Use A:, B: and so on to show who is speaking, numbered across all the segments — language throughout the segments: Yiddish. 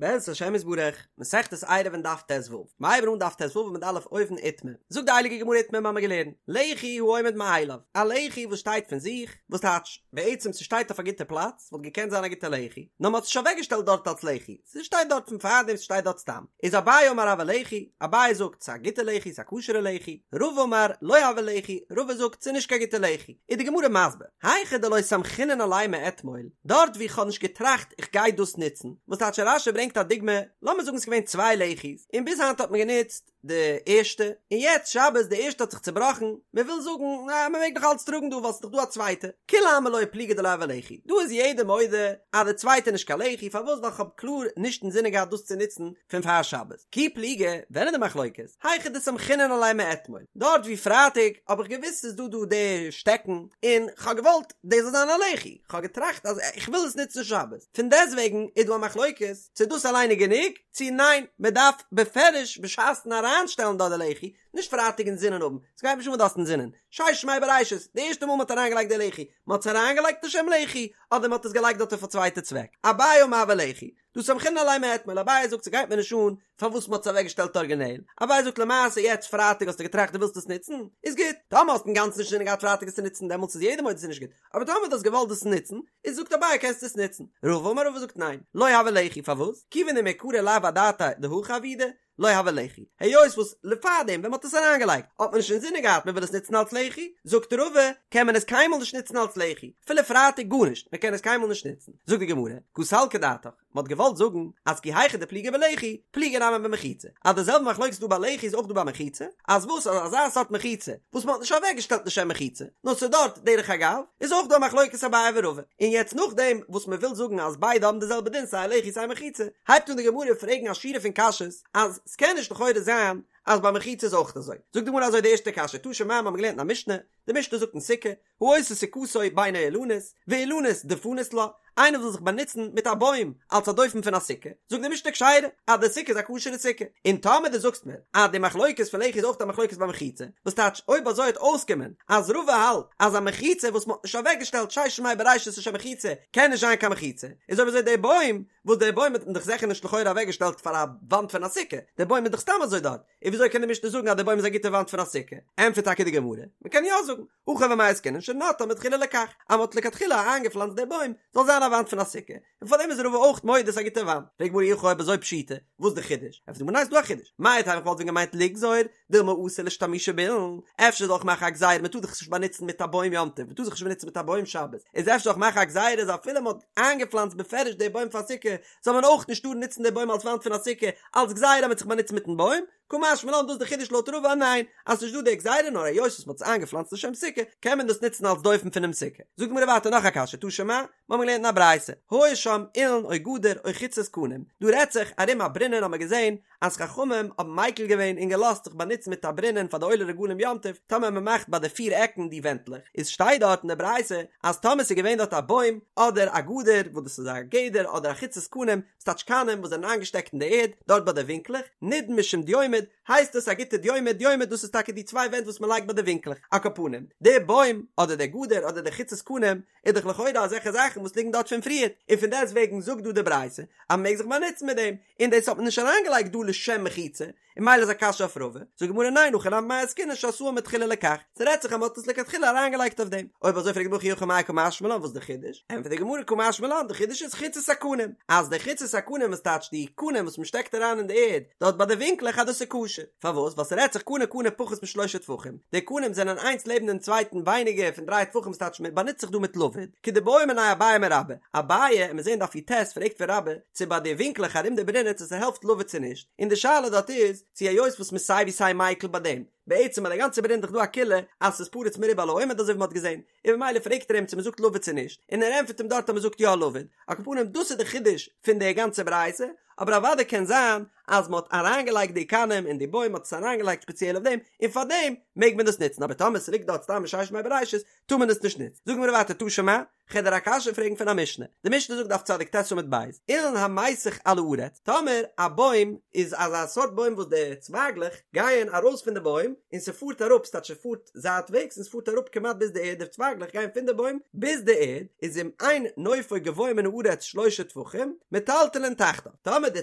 A: בעזרת השם יתברך, מסכת עירובין דף ט"ו, מ'הייבן אן דף ט"ו עמוד א' אויבן איתמר, זאגט די הייליגע גמרא איתמר מ'האמיר געלערנט, לחי העומד מאליו, א לחי וואס שטייט פון זיך, וואס טייטש, בעצם ס'שטייט אויף א גוטע פלאץ, וואלט געקענט זיין א גוטע לחי, נאר מ'האט עס נישט אוועקגעשטעלט דארט אלס לחי, ס'שטייט דארט פון פארדעם ס'שטייט דארט סתם, איז אביי אמר הוי לחי, אביי זאגט ס'איז א גוטע לחי ס'איז א כשר'ע לחי, רבא אמר לא הוי לחי, רבא זאגט ס'איז נישט קיין גוטע לחי, איז די גמרא מסביר, היכא דלא סמכינן עליה מאתמול, דארט ווי כ'האב נישט געטראכט איך גיי דאס נוצן, וואס טייטש רש"י ברענגט א דוגמא, לאמיר זאגן ס'איז געווען צוויי לחי'ס, און ביז היינט האט מען גענוצט די ערשטע, און יעצט שבת די ערשטע האט זיך צובראכן, מען וויל זאגן אה מען מעג נאך אלץ טראגן דא ווייל ס'איז דאך דא א צווייטע, כולי עלמא לא פליגי דלא הוי לחי, דא איז יעדער מודה אז די צווייטע איז נישט קיין לחי, פארוואס ווייל כ'האב קלאר נישט אינזינען געהאט דאס צו נוצן פון פאר שבת. כי פליגי, ווען איז די מחלוקת? היכא דסמכינן עליה מאתמול, דארט ווי פרייטאג האב איך געוואוסט ס'איז דא דא די שטעקן, און כ'האב געוואלט דאס זאל זיין א לחי, כ'האב געטראכט אז איך וויל עס נוצן שבת, פון דעסטוועגן איז דא א מחלוקת צו דאס אליין איז גענוג, צו ניין, מען דארף בפירוש בשעת'ן אריינשטעלן דארט די לחי, נישט פרייטאג אינזינען האבן, ס'גייט נישט אן וואס דו האסט אינזינען, ששת ימי בראשית, די ערשטע מאל מ'האט אריינגעלייגט די לחי, מ'האט עס אריינגעלייגט לשם לחי, אדער מ'האט עס געלייגט דארט אויף א צווייטע צוועק, אביי אמר הוי לחי, דהא סמכינן עליה מאתמול, אביי זאגט ס'גייט מיר נישט אן פארוואס מ'האט עס אוועקגעשטעלט ארגינעל, אביי זאגט למעשה יעצט פרייטאג האסטו געטראכט דו ווילסט עס נוצן, איז גוט, טאמער האסט אינגאנצן נישט אינזינען געהאט פרייטאג עס צו נוצן דעמאלטס איז יעדער מודה ס'איז נישט גוט, אבער טאמער דו האסט געוואלט דאס נוצן, איז זאגט אביי קענסטו עס נוצן, רבא אמר רבא זאגט ניין, לא הוי לחי פארוואס? כיוון דמעיקרא לאו אדעתיה דהכי עבידי, לא הוי לחי, היות וואס פארדעם ווען מ'האט עס אריינגעלייגט האט מען נישט אינזינען געהאט מ'וויל עס נוצן אלס לחי, זאגט רבא קען מען עס קיינמאל נישט נוצן אלס לחי, אפילו פרייטאג גארנישט, מ'קען עס קיינמאל נישט נוצן, זאגט די גמרא, קא סלקא דעתך, מ'האט געוואלט זאגן אז כי היכי דפליגי בלחי, פליגי נמי במחיצה, אז די זעלבע מחלוקת איז דא ביי לחי איז אויך דא ביי מחיצה, אז וואס אז אזא סארט מחיצה וואס מ'האט נישט אוועקגעשטעלט לשם מחיצה, נאר ס'איז דארט דרך אגב, איז אויך דא א מחלוקת אביי ורבא, און יעצט נאכדעם וואס מ'וויל זאגן אז ביידע האבן די זעלבע דין סיי לחי סיי מחיצה, הייבט אן די גמרא פרעגן א שורה פון קשיות אז ס'קען נישט לכאורה זיין אז ביי מחיצה איז אויך אזוי, זאגט די גמרא אזוי די ערשטע קשיא, תא שמע מ'האמיר געלערנט אין א משנה, די משנה זאגט אין סוכה, העושה סוכתו בין האילנות, ואילנות דפנות לה, איינער וויל זיך באנוצן מיט א בוים אלס א דופן פון א סוכה, זאגט די משנה כשרה, אז די סוכה איז א כשר'ע סוכה, און טאמער דו זאגסט מיר אז די מחלוקת פון לחי איז אויך א מחלוקת ביי מחיצה, וואס טייטש אויב אזוי וועט אויסקומען אז רבא האלט אז א מחיצה וואס מ'האט נישט אוועקגעשטעלט ששת ימי בראשית לשם מחיצה קען נישט זיין קיין מחיצה, איז אויב אזוי די בוים, וואס די בוים האט מען דאך זיכער נישט לכאורה אוועקגעשטעלט פאר א וואנט פון א סוכה, די בוים איז דאך סתם אזוי דארט, און וויאזוי קען די משנה זאגן אז די בוים איז א גוטע וואנט פון א סוכה? ענטפערט טאקע די גמרא, מען קען יא זאגן, הכא במאי עסקינן שנטעה מתחילה לכך, אז מען האט לכתחילה איינגעפלאנצט די בוים זאל זיין א וואנט פון א סוכה, און פארדעם איז רבא אויך מודה ס'איז א גוטע וואנט. פרעגט די גמרא אי הכי אויב אזוי פשיטא, וואס איז די חידוש? ענטפערט די גמרא ניין ס'איז דא א חידוש, מהו דתימא איך וואלט ווען געמיינט לגזור דילמא אתי לאשתמושי באילן, אפשר זאל איך מאכן א גזירה מען טאר זיך נישט באנוצן מיט א בוים יום טוב, מען טאר זיך נישט באנוצן מיט א בוים שבת, איז אפשר זאל איך מאכן א גזירה אז אפילו מען האט איינגעפלאנצט בפירוש די בוים פאר סוכה, זאל מען אויך נישט טארן נוצן די בוים אלס וואנט פון א סוכה, אלס גזירה אז מען האט זיך באנוצט מיטן בוים, קא משמע לן דאס איז די חידוש לויט רבא ניין, אז ס'נישט דא די גזירה נאר היות וואס מ'האט עס איינגעפלאנצט לשם סוכה קען מען דאס נוצן אלס דופן פונעם סוכה. זאגט די גמרא ווייטער נאך א קשיא תא שמע, מ'האמיר געלערנט אין א ברייתא, היה שם אילן או גדר או חוצות קנים, דא רעדט זיך ארום א ברונען האמיר געזען אז חכמים האבן מיקל געווען און געלאזט זיך באנוצן מיט א ברונען פאר די עולי רגלים יום טוב טאמער מ'מאכט ביי די פיר עקן די ווענטלעך, איז שטייט דארט אין די ברייתא אז טאמער ס'איז געווען דארט א בוים אדער א גדר וואס דאס איז א גדר אדער א חוצות קנים ס'טייטש קנים וואס זענען איינגעשטעקט אין די ערד, דארט ביי די ווינקלעך, נידון משום דיומד, הייסט עס א גוטע דיומד, דיומד דאס איז טאקע די צוויי ווענט וואס מען לייגט ביי די ווינקלעך, על כל פנים, די בוים, אדער די גדר, אדער די חוצות קנים, איז דאך לכאורה אזעלכע זאכן וואס ליגן דארט פון פריערט, און פון דעסט וועגן זאגט דא די ברייתא אז מען מעג זיך באנוצן מיט דעם, און דאס האט מען נישט אריינגעלייגט דא לשם מחיצה, און ממילא איז א קשיא אויף רבא, זאגט די גמרא ניין הכא נמי במאי עסקינן שעשאה מתחילה לכך, ס'רעדט זיך אז מ'האט עס לכתחילה אריינגעלייגט אויף דעם, אויב אזוי פרעגט די גמרא אי הכי מאי קא משמע לן וואס איז די חידוש, ענטפערט די גמרא קא משמע לן די חידוש איז חוצות הקנים, אז די חוצות הקנים וואס טייטש די קנים וואס מ'שטעקט אריין אין די ערד דארט ביי די ווינקלעך אז דאס איז כשר, פארוואס ווייל ס'רעדט זיך קנה קנה פחות משלושה טפחים, די קנים זענען איינס לעבן דעם צווייטן ווייניגער פון דריי טפחים וואס טייטש מ'באנוצט זיך דא מיט לבוד, כדבעא מיניה אביי מרבה, אביי, און מיר זעהן דף י"ט פרעגט פון רבה, צו ביי די ווינקלעך ארום די ברונען צו ס'העלפט לבוד צו נישט, און די שאלה דארט איז, צו היות וואס מ'איז סיי ווי סיי מיקל ביי דעם, בעצם ביי די גאנצע ברונען איז דאך דא א קולא אז ס'איז פרוץ מרובה על העומד אזוי ווי מ'האט געזען, און ממילא פרעגט ער אים צו מ'זאגט לבוד צו נישט, און ער ענטפערט אים דארט אז מ'זאגט יא לבוד, על כל פנים דאס איז די חידוש פון די גאנצע ברייתא, אבער אוודאי קען זיין אז מ'האט אריינגעלייגט די קנים אין די בוים מ'האט עס אריינגעלייגט ספעציעל אויף דעם, און פארדעם מעג מען דאס נוצן, אבער טאמער ס'ליגט דארט סתם מששת ימי בראשית טאר מען עס נישט נוצן. זאגן מיר ווייטער תא שמע, כ'וועל דיר א קשיא פרעגן פון א משנה. די משנה זאגט דף צדיק ט עמוד ב', אילן המיסך על הארץ, טאמער א בוים איז אזא סארט בוים וואס די צווייגלעך גייען ארויס פון די בוים. בוים, און ס'פארט אראפ, ס'טייטש ס'פארט זייטוועגס און ס'פארט אראפ כמעט ביז די ערד, די צווייגלעך גייען פון די בוים ביז די ערד, איז אם אין נופו גבוה מן הארץ שלשה טפחים, מטלטלין תחתיו, טאמער די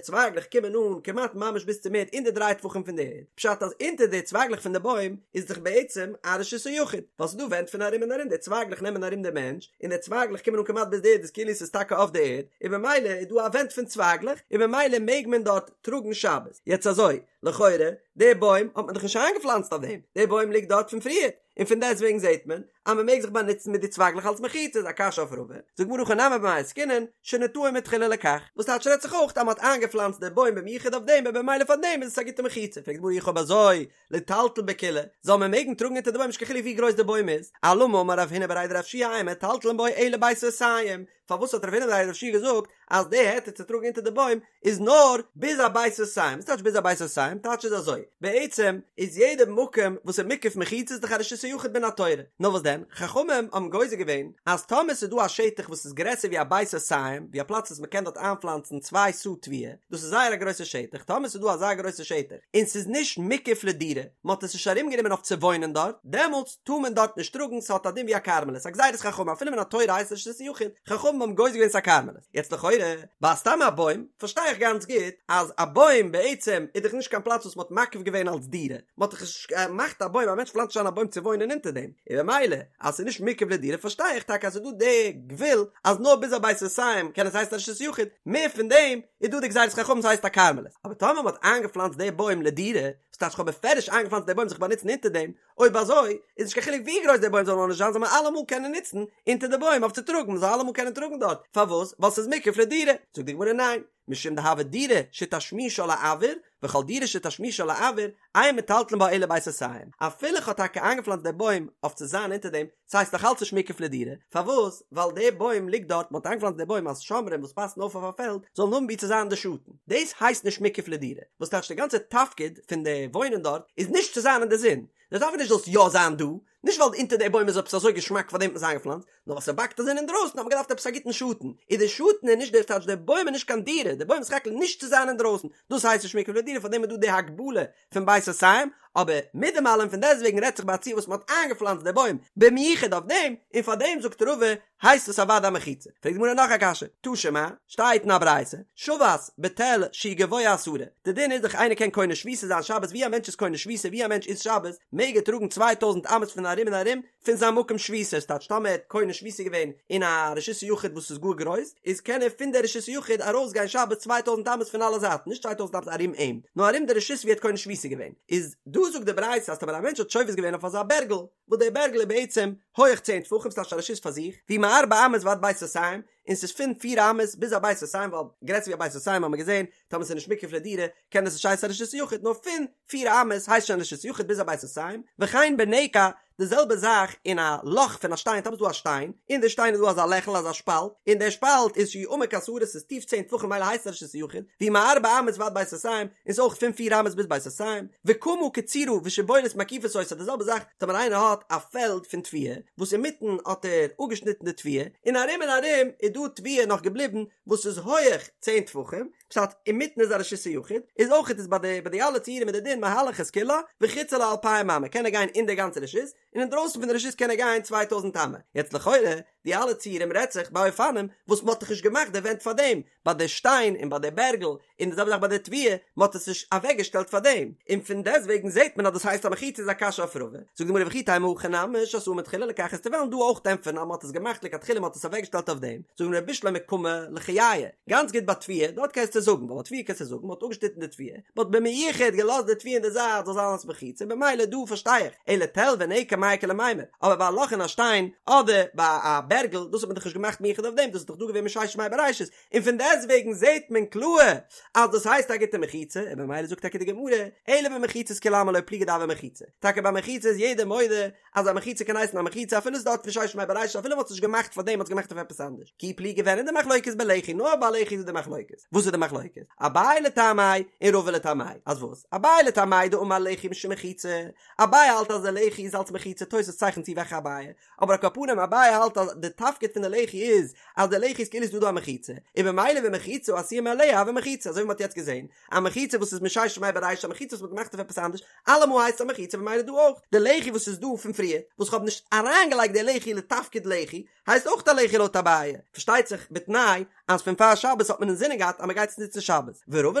A: צווייגלעך קומען אן כמעט ממש ביז צום ערד אין די דריי טפחים פון די ערד, פשט אז אונטער די צווייגלעך פון די בוים איז דאך בעצם א רשות היחיד, ווייל ס'איז דא ווענט פון ארום און ארום, די צווייגלעך נעמען ארום די מענטש, און די צווייגלעך קומען אן כמעט ביז די ערד איז כאילו ס'איז טאקע אויף די ערד, און במילא איז דא א ווענט פון צווייגלעך, און במילא מעג מען דארט טראגן שבת. יעצט אזוי, לכאורה, די בוים האט מען דאך נישט איינגעפלאנצט אויף דעם, די בוים ליגט דארט פון פריערט, און פון דעסטוועגן זעט מען אז מען מעג זיך באנוצן מיט די צווייגלעך אלס מחיצה, איז א קשיא אויף רבא, זאגט די גמרא הכא נמי במאי עסקינן, שנטעו מתחילה לכך, וואס טייטש רעדט זיך אויך אז מען האט איינגעפלאנצט די בוים במיוחד אויף דעם און במילא פאר דעם איז עס א גוטע מחיצה, פרעגט די גמרא אי הכי אויב אזוי ליטלטל בכולה, זאל מען מעגן טראגן אונטער די בוים נישט קיין חילוק ווי גרויס די בוים איז, אלמה אמר רב הונא בריה דרב יהושע אין מטלטלין בו אלא בית סאתים, פארוואס האט רב הונא בריה דרב יהושע געזאגט אז די היתר צו טראגן אונטער די בוים איז נאר ביז א בית סאתים, וואס טייטש ביז א בית סאתים? טייטש איז אזוי, בעצם איז יעדע מקום וואס איז מוקף מחיצה איז דאך א רשות היחיד מן התורה, נאר וואס דען, חכמים האבן גוזר געווען אז טאמער ס'איז דא א שטח וואס איז גרעסער ווי א בית סאתים, ווי א פלאץ וואס מ'קען דארט איינפלאנצן צוויי סאה תבואה, דאס איז זייער א גרויסע שטח, טאמער ס'איז דא אזא גרויסע שטח און ס'איז נישט מוקף לדירה, מ'האט עס נישט ארומגענומען אויף צו וואוינען דארט, דעמאלטס טאר מען דארט נישט טראגן, ס'האט א דין ווי א כרמלית, א גזירת חכמים, אפילו מן התורה הייסט עס רשות היחיד, חכמים האבן גוזר געווען ס'איז א כרמלית. יעצט לכאורה, ביי סתם א בוים, פארשטיי איך גאנץ גוט, אז א בוים בעצם איז דאך נישט קיין פלאץ וואס מ'האט מקיף געווען אלס דירה, מ'האט דאך נישט געמאכט א בוים, א מענטש פלאנצט נישט איין א בוים צו וואוינען אונטער דעם, און במילא אז ס'איז נישט מוקף לדירה פארשטיי איך טאקע אז ס'איז דא די גבול אז נאר ביז א בית סאתים קען עס הייסן א רשות יחיד, מער פון דעם איז דא די גזירת חכמים ס'הייסט א כרמלית, אבער טאמער מ'האט איינגעפלאנצט די בוים לדירה, וואס טייטש כ'האב בפירוש איינגעפלאנצט די בוים זיך באנוצן אונטער דעם, אויב אזוי איז נישט קיין חילוק ווי גרויס די בוים זאל נאר נישט זיין זאל מען אלעמאל קענען נוצן אונטער די בוים אויף צו טראגן, מ'זאל אלעמאל קענען טראגן דארט, פארוואס? ווייל ס'איז מוקף לדירה, זאגט די גמרא ניין, משום דהוי דירה שתשמישה לאויר, וכל דירה שתשמישה לאויר, אין מטלטלין בה אלא בית סאתים, אפילו כ'האב טאקע איינגעפלאנצט די בוים אויף צו זיין אונטער דעם, ס'הייסט נאך אלץ נישט מוקף לדירה, פארוואס? ווייל די בוים ליגט דארט, מ'האט איינגעפלאנצט די בוים אז שומרים וואס פאסן אויף אויף א פעלד זאלן האבן וואו צו זיין אין די שאטן, דאס הייסט נישט מוקף לדירה, וואס טייטש די גאנצע תפקיד פון די וואוינען דארט איז נישט צו זיין אין די זון, די תפקיד איז נישט זאלסט יא זיין דא, נישט ווייל אונטער די בוים איז עפעס אזוי געשמאק פאר דעם האט מען עס איינגעפלאנצט, נאר ווייל ס'באקט א זון אינדרויסן האט מען געדארפט עפעס א גוטן שאטן, איז די שאטן איז נישט די טייטש די בוים איז נישט קיין דירה, די בוים איז סך הכל נישט צו זיין אינדרויסן, דאס הייסט נישט מוקף לדירה פאר דעם איז דא די הגבלה פון בית סאתים, אבער מיט דעם אלעם פון דעסטוועגן רעדט זיך ביי א ציור וואס מען האט איינגעפלאנצט די בוים במיוחד אויף דעם, און פאר דעם זאגט רבא הייסט עס אוודאי א מחיצה. פרעגט די גמרא נאך א קשיא, תא שמע, שטייט אין א ברייתא, שבת בתל שהוא גבוה עשרה, די דין איז דאך איינער קען קונה שביתה זיין שבת ווי א מענטש איז קונה שביתה ווי א מענטש איז שבת מעג ער טראגן צוויי טויזנט אמות פון ארום און ארום פון זיין מקום שביתה, ס'טייטש טאמער ער האט קונה שביתה געווען אין א רשות היחיד וואס איז גאר גרויס, איז קען ער פון די רשות היחיד ארויס גיין שבת צוויי טויזנט אמות פון אלע זייטן, נישט צוויי טויזנט אמות ארום אים, נאר ארום די רשות ווי ער האט קונה שביתה געווען. איז דא זאגט די ברייתא אז טאמער א מענטש האט שובת געווען אויף אזא בערגל, וואס דער בערגל איז בעצם הויעך צען טפחים, ס'טייטש א רשות פאר זיך, והוא מארבע אמות ועד בית סאתים, און ס'איז פון פיר אמות ביז א בית סאתים, ווייל גרעסער ווי א בית סאתים האט מען געזען, טאמער ס'איז נישט מוקף לדירה, קען עס נישט הייסן א רשות יחיד, נאר פון פיר אמות הייסט שוין רשות יחיד ביז א בית סאתים, וכן בנקע, די זעלבע זאך אין א לאך פון א שטיין, טאמער ס'איז דא א שטיין, אין די שטיין איז דא אזא לעכל אזא שפאלט, און דער שפאלט איז שהוא עמוק עשרה ס'איז טיף צען טפחים ממילא הייסט עס רשות יחיד, והוא מארבע אמות ועד בית סאתים, און ס'איז אויך פון פיר אמות ביז בית סאתים, וקמה קצורה ושבולת מקיפות אותה, די זעלבע זאך טאמער איינער האט א פעלד פון תבואה, וואס אינמיטן האט ער אפגעשניטן די תבואה, און ארום און ארום איז דא תבואה נאך געבליבן וואס איז הויעך צען טפחים, פשט, אינמיטן איז א רשות היחיד, איז אויכעט איז ביי די ביי די אלע ציורים איז די דין מהלך את כולה, וחוצה לה אלפיים אמה, קען ער גיין אין די גאנצע רשות, און אינדרויסן פון די רשות קען ער גיין צוויי טויזנט אמה. יעצט לכאורה, די אלע ציורים רעדט זיך ביי אופנים וואס מ'האט דאך נישט געמאכט די ווענט פאר דעם, ביי די שטיין און ביי די בערגל, און די זעלבע זאך ביי די תבואה, מ'האט עס נישט אוועקגעשטעלט פאר דעם, און פון דעסטוועגן זעט מען אז דאס הייסט א מחיצה איז א קשיא אויף רבא, זאגט די גמרא וכי תימא הכא נמי שעשאן מתחילה לכך וועסטו וועלן דא אויך ענטפערן אז מ'האט עס געמאכט לכתחילה מ'האט עס אוועקגעשטעלט אויף דעם, זאגט די גמרא בשלמא קמה לחייא, גאנץ גוט ביי תבואה, דארט קענסטו זאגן, ווייל ביי תבואה קענסטו זאגן מ'האט אפגעשניטן די תבואה, מ'האט במיוחד געלאזט די תבואה אין די זייט זאל זיין אלס מחיצה, במילא דא פארשטיי איך, אלא תל ונקע מאי איכא למימר, אבער ביי א לאך אין א שטיין, אדער ביי א בערגל, דאס האט מען דאך נישט געמאכט מיוחד אויף דעם, דאס איז דאך דא געווען מששת ימי בראשית, און פון דעסטוועגן זעט מען קלאר אז דאס הייסט א גוטע מחיצה, און במילא זאגט טאקע די גמרא, אלא במחיצות כולי עלמא לא פליגי דהוי מחיצה, טאקע ביי מחיצה איז יעדער מודה אז א מחיצה קען הייסן א מחיצה אפילו ס'איז דארט פון ששת ימי בראשית אפילו מ'האט עס נישט געמאכט פאר דעם מ'האט עס געמאכט אויף עפעס אנדערש, כי כי פליגי ווען איז די מחלוקת בלחי נאר ביי לחי איז די מחלוקת וואס איז די מחלוקת אביי לטעמיה און רבא לטעמיה אז וואס אביי לטעמיה דאמר לחי משום מחיצה אביי האלט אז די לחי איז אלס מחיצה תוס' צייכנט צו וועלכע אביי אבער על כל פנים אביי האלט אז די תפקיד פון די לחי איז אז די לחי איז כאילו ס'איז דא דא א מחיצה און במילא ומחיצה העשויה מאליה הוי מחיצה אזוי ווי מ'האט יעצט געזען א מחיצה וואס איז מששת ימי בראשית א מחיצה וואס מ'האט געמאכט אויף עפעס אנדערש אלעמאל הייסט עס א מחיצה במילא דא אויך די לחי וואס איז דא פון פריער וואס כ'האב נישט אריינגעלייגט די לחי לתפקיד לחי הייסט אויך א לחי לויט אביי פארשטייט זיך בתנאי אז פון פאר שבת האט מען אינזינען געהאט אז מ'גייט עס נוצן שבת ורבא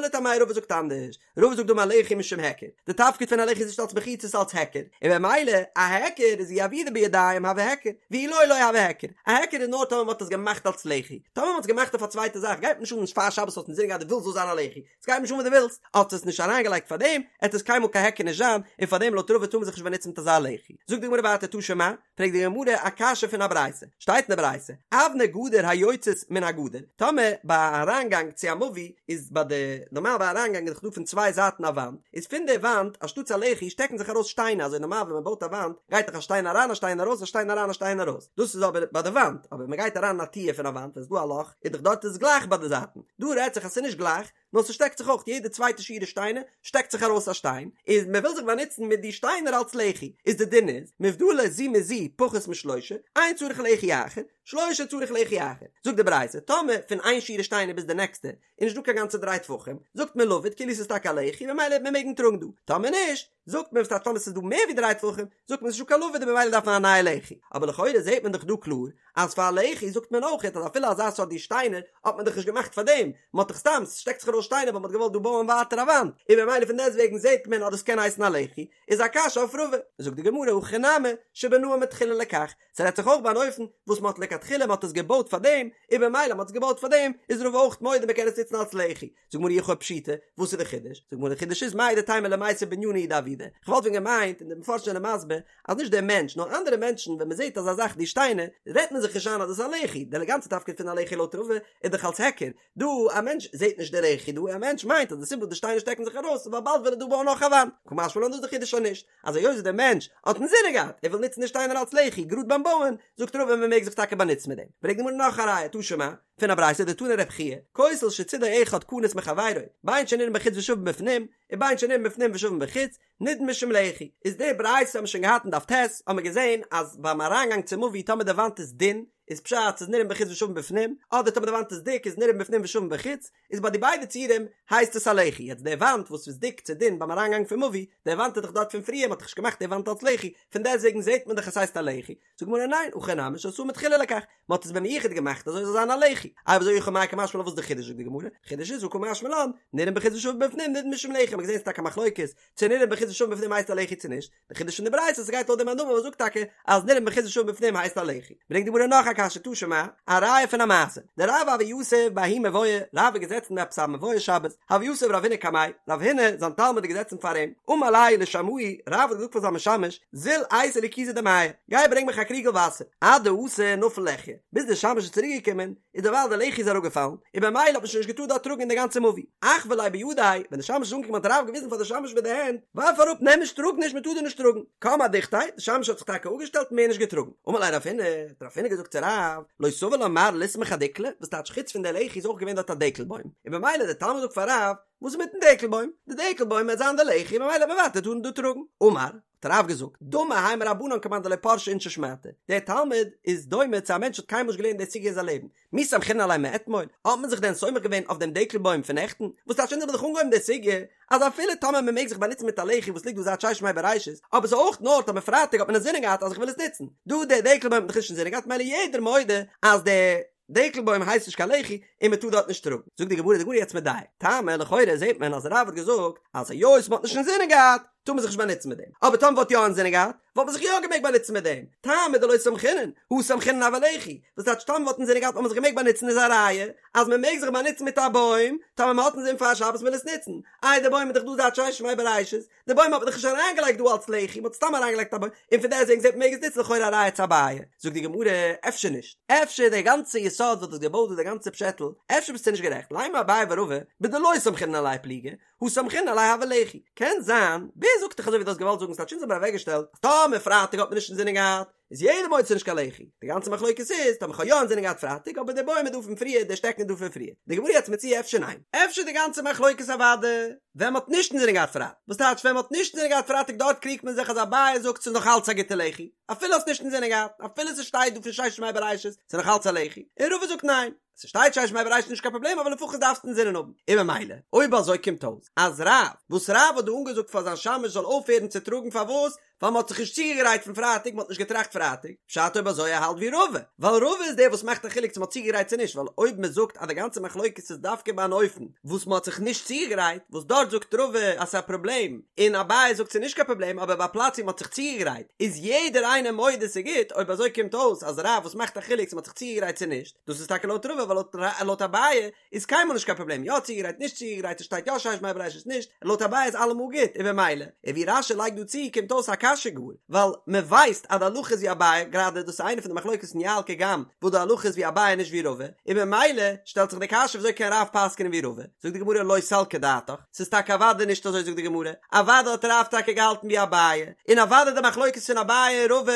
A: לטעמיה רבא זאגט אנדערש רבא זאגט דאמר לחי משום היכר, די תפקיד פון א לחי איז נישט אלס מחיצה ס'איז אלס היכר, און במילא א היכר איז אי עבידא בידים הוי היכר, ואי לא לא הוי היכר, א היכר איז נאר טאמער מ'האט עס געמאכט אלס לחי, טאמער מ'האט עס געמאכט אויף א צווייטע זאך גייט נישט אן פאר שבת האסט אינזין געהאט דו ווילסט זאל זיין א לחי, ס'גייט נישט אן וואס דו ווילסט, האסט עס נישט אריינגעלייגט פארדעם, עט עס קיינמאל קיין היכר נישט זיין, און פארדעם לויט רבא טאר מען זיך נישט באנוצן מיט אזא לחי. זאגט די גמרא ווייטער תא שמע, פרעגט די גמרא א קשיא פון א ברייתא, שטייט אין די ברייתא, אבני גדר היוצאות מן הגדר, טאמער ביי א אריינגאנג צו א מבוי איז ביי די, נארמאל ביי א אריינגאנג איז דאך דא פון צוויי זייטן א וואנט, איז פון די וואנט אנשטאטס א לחי שטעקן זיך ארויס שטיינער, אזוי נארמאל ווען מען בויט א וואנט גייט דאך א שטיין אריין א שטיין ארויס א שטיין אריין א שטיין ארויס, דאס איז אבער ביי די וואנט, אבער ווען מען גייט אריין אין א טיר פון א וואנט ווען ס'איז דא א לאך איז דאך דארט איז גלייך ביי די זייטן, דא רעדט זיך אז ס'איז נישט גלייך, נאר ס'שטעקט זיך אויך יעדע צווייטע שורה שטיינער שטעקט זיך ארויס א שטיין, איז מען וויל זיך באנוצן מיט די שטיינער אלס לחי, איז די דין איז, מובדלות זו מזו פחות משלושה, אין צריך לחי אחר, שלושה צריך לחי אחר. זאגט די ברייתא, טאמער פון איין שורה שטיינער ביז די נעקסטע איז נישט דא קיין גאנצע דריי טפחים, זאגט מען לבוד כאילו ס'איז טאקע א לחי ממילא וועט מען מעגן טראגן דא, טאמער נישט, זאגט מען וואס טייטש טאמער ס'איז דא מער ווי דריי טפחים, זאגט מען ס'איז נישטא קיין לבוד און ממילא דארף מען א נייע לחי, אבער לכאורה זעט מען דאך דא קלאר אז פאר א לחי זאגט מען אויכעט אז אפילו אזא סארט די שטיינער האט מען דאך נישט געמאכט פאר דעם, מען האט דאך סתם, ס'שטעקט זיך ארויס שטיינער ווייל מען האט געוואלט דא בויען ווייטער א וואנט, און ממילא פון דעסטוועגן זעט מען אז דאס קען הייסן א לחי, איז א קשיא אויף רבא. זאגט די גמרא הכא נמי שבנאו מתחילה לכך, ס'רעדט זיך אויך ביי אן אופן וואס מען האט לכתחילה מען האט עס געבויט פאר דעם, און ממילא מען האט עס געבויט פאר דעם איז רבא אויך מודה מען קען עס נוצן אלס לחי. זאגט די גמרא אי הכי פשיטא, וואס איז די חידוש? זאגט די גמרא די חידוש איז מהו דתימא למיסב בנינא הוא דעבידא, כ'וואלט ווען געמיינט, און די מפרשים זענען מסביר, אז נישט דער מענטש נאר אנדערע מענטשן ווען מען זעט אזא זאך די שטיינער, רעדט מען זיך נישט איין אז דאס איז א לחי, די גאנצע תפקיד פון א לחי לויט רבא איז דאך אלס היכר, דא א מענטש זעט נישט די לחי דא, א מענטש מיינט אז די סיבה וואס די שטיינער שטעקן זיך ארויס איז ווייל באלד וויל ער דא בויען נאך א וואנט, קא משמע לן דאס איז די חידוש אז נישט, אז היות דער מענטש האט אינזינען געהאט ער וויל נוצן די שטיינער אלס לחי גראד ביים בויען, זאגט רבא מען מעג זיך טאקע באנוצן מיט דעם. ברענגט די גמרא נאך א ראיה, תא שמע, פון א ברייתא דתני רב חייא, כותל שצידו אחד כנוס מחבירו, בין שנראה מבחוץ ושווה מבפנים, ובין שנראה מבפנים ושווה מבחוץ, נידון משום לחי. איז די ברייתא האבן מיר שוין געהאט אין דף ט', האבן מיר געזען אז ביים אריינגאנג צום מבוי טאמער די וואנט איז דין, איז פשט ס'איז נראה מבחוץ ושווה מבפנים, אדער טאמער די וואנט איז דיק איז נראה מבפנים ושווה מבחוץ, איז ביי די ביידע ציורים הייסט עס א לחי, יעצט די וואנט וואס איז דיק צו דין ביים אריינגאנג פון מבוי, די וואנט איז דאך דארט פון פריער, מ'האט דאך נישט געמאכט די וואנט אלס לחי, פון דעסטוועגן זעט מען דאך עס הייסט א לחי, זאגט די גמרא ניין, הכא נמי שעשאה מתחילה לכך, מ'האט עס במיוחד געמאכט אזוי זאל זיין א לחי, אויב אזוי אי הכי מאי קא משמע לן וואס איז די חידוש זאגט די גמרא, חידוש איז הא קא משמע לן, נראה מבחוץ ושווה מבפנים נידון משום לחי, מ'האט געזען ס'איז טאקע א מחלוקת צו נראה מבחוץ ושווה מבפנים הייסט א לחי צו נישט, די חידוש פון די ברייתא אז ס'גייט לויט די מאן דאמר וואס זאגט טאקע אז נראה מבחוץ ושווה מבפנים הייסט א לחי. ברענגט די גמרא נאך א קשיא תא שמע, א ראיה פון א מעשה, דרב הוה יתיב בההוא מבואה, רב איז געזעצן אין עפעס א מבואה שבת, הוה יתיב רב הונא קמיה, רב הונא זיין תלמיד איז געזעצן פאר אים, אמר ליה לשמעיה, רב האט געזאגט פאר זיין משמש, זיל אייתי לי כוזא דמיא, גיי ברענג מיך א קריגל וואסער, עד דאתא נפל לחייא, ביז דער שמש איז צוריק געקומען, איז דערווייל די לחי איז אראפגעפאלן, און במילא האט מען שוין נישט געטארט דארט טראגן אין די גאנצע מבוי. אחוי ליה בידיה, ווען די שמש איז אנגעקומען האט רב געוויזן פאר די שמש מיט די הענט, ווארף אראפ, נעם נישט, טראג נישט, מען טאר דא נישט טראגן. קם אדוכתיה, די שמש האט זיך טאקע אפגעשטעלט און מער נישט געטראגן. אמר ליה רב הונא, האט רב הונא געזאגט צו רב, לא סבר לה מר לסמוך אדיקלא, וואס טייטש חוץ פון די לחי איז אויך געווען דארט א דקל בוים, און במילא דער תלמיד זאגט פאר רב, וואס איז מיטן דקל בוים? די דקל בוים וועט זיין די לחי, ממילא וועט מען ווייטער טארן דא טראגן. אמר, האט רב געזאגט, דמי האי מרבנן כמאן דלא פרשי אינשי שמעתא, דער תלמיד איז דומה צו א מענטש וואס האט קיינמאל נישט געלערנט די סוגיא אין זיין לעבן, מי סמכינן עליה מאתמול, האט מען זיך דען סומך געווען אויף דעם דקל בוים פון נעכטן? וואס טייטש אונז האבן דאך אנגעהויבן די סוגיא אז אפילו טאמער מען מעג זיך באנוצן מיט א לחי וואס ליגט דא זייט ששת ימי בראשית, אבער ס'איז אויך נאר טאמער פרייטאג האט מען אינזינען געהאט אז איך וויל עס נוצן, דא דער דקל בוים האט מען דאך נישט אינזינען געהאט ממילא יעדער מודה אז דער דקל בוים הייסט נישט קיין לחי און מען טאר דארט נישט טראגן. זאגט די גמרא, די גמרא יעצט מדייק, טעמא לכאורה זעט מען אז רב האט געזאגט אז היות מען האט נישט אינזינען געהאט טאר מען זיך נישט באנוצן מיט דעם, אבער טאמער מ'וואלט יא אינזינען געהאט וואלט מען זיך יא געמעגט באנוצן מיט דעם, טעמא דלא סמכינן, הא סמכינן הוי לחי, וואס טייטש טאמער מ'וואלט אינזינען געהאט וואלט מען זיך געמעגט באנוצן איז א ראיה אז מען מעג זיך באנוצן מיט א בוים טאמער מען האט אינזין פאר שבת מ'וויל עס נוצן, איי די בוים איז דאך דא זייט ששת ימי בראשית, די בוים האט מען דאך נישט אריינגעלייגט דא אלס לחי, מ'האט סתם אריינגעלייגט א בוים, און פון דעסטוועגן זעט מען מ'מעג עס נוצן לכאורה א ראיה צו אביי. זאגט די גמרא, אפשר נישט, אפשר די גאנצע יסוד וואס דו האסט געבויט דא די גאנצע פשעטל, אפשר ביסטו נישט גערעכט, לימא אביי ורבא, בדלא סמכינן עליה פליגי, הא סמכינן עליה הוי לחי, קען זיין, ווער ווער זאגט דיך אזוי ווי דו האסט געוואלט זאגן ס'טייטש אונז האבן אוועקגעשטעלט אז טאמער פרייטאג האט מען נישט אינזינען געהאט איז יעדער מודה ס'נישט קיין לחי, די גאנצע מחלוקת איז טאמער כ'האב יא אינזינען געהאט פרייטאג אבער די בוים איז דא פון פריער די שטעקן איז דא פון פריער, די גמרא יעצט מציע אפשר ניין? אפשר די גאנצע מחלוקת אוואדע ווען מ'האט נישט אינזינען געהאט פרייטאג, וואס טייטש ווען מ'האט נישט אינזינען געהאט פרייטאג דארט קריגט מען זיך אז אביי זאגט ס'איז נאך אלץ א גוטע לחי אפילו האסט נישט אינזינען געהאט אפילו ס'שטייט דא פון ששת ימי בראשית ס'איז נאך אלץ א לחי, און רבא זאגט ניין. ס'שטייט ששת ימי בראשית נישט קיין פראבלעם אבער לפחות דארפסטו אינזינען האבן. און ממילא אויב אזוי קומט אויס אז רב, וואס רב האט דא אנגעזאגט פאר זיין שמש זאל אויפהערן צו טראגן פארוואס? ווייל מ'האט זיך נישט צוגעגרייט פון פרייטאג מ'האט נישט געטראכט פרייטאג, פשט אויב אזוי ער האלט ווי רבא, ווייל רבא איז דער וואס מאכט א חילוק צו מ'האט צוגעגרייט צו נישט ווייל אויב מ'זאגט אז די גאנצע מחלוקת איז דווקא ביי אן אופן וואס מ'האט זיך נישט צוגעגרייט וואס דארט זאגט רבא אז ס'איז א פראבלעם און אביי זאגט ס'איז נישט קיין פראבלעם אבער ביי א פלאץ ווי מ'האט זיך צוגעגרייט איז יעדער איינער מודה ס'איז גוט אויב אזוי קומט אויס אז רב וואס מאכט א חילוק צו מ'האט זיך צוגעגרייט צו נישט דאס איז טאקע לויט רבא ווייל לויט אביי איז קיינמאל נישט קיין פראבלעם יא צוגעגרייט נישט צוגעגרייט עס שטייט יא ששת ימי בראשית נישט לויט אביי איז אלעמאל גוט און במילא און ווי רש"י לייגט דא צו קומט אויס א קשיא גאר ווייל מען ווייסט אז די הלכה איז ווי אביי גראדע דאס איז איינע פון די מחלוקת אין יע"ל קג"ם וואס די הלכה איז ווי אביי נישט ווי רבא און במילא שטעלט זיך די קשיא וויאזוי קען רב פסק'נען ווי רבא זאגט די גמרא לא סלקא דעתך ס'איז טאקע אוודאי נישט אזוי זאגט די גמרא אוודאי האט רב טאקע געהאלטן ווי אביי און אוודאי די מחלוקת פון אביי און רבא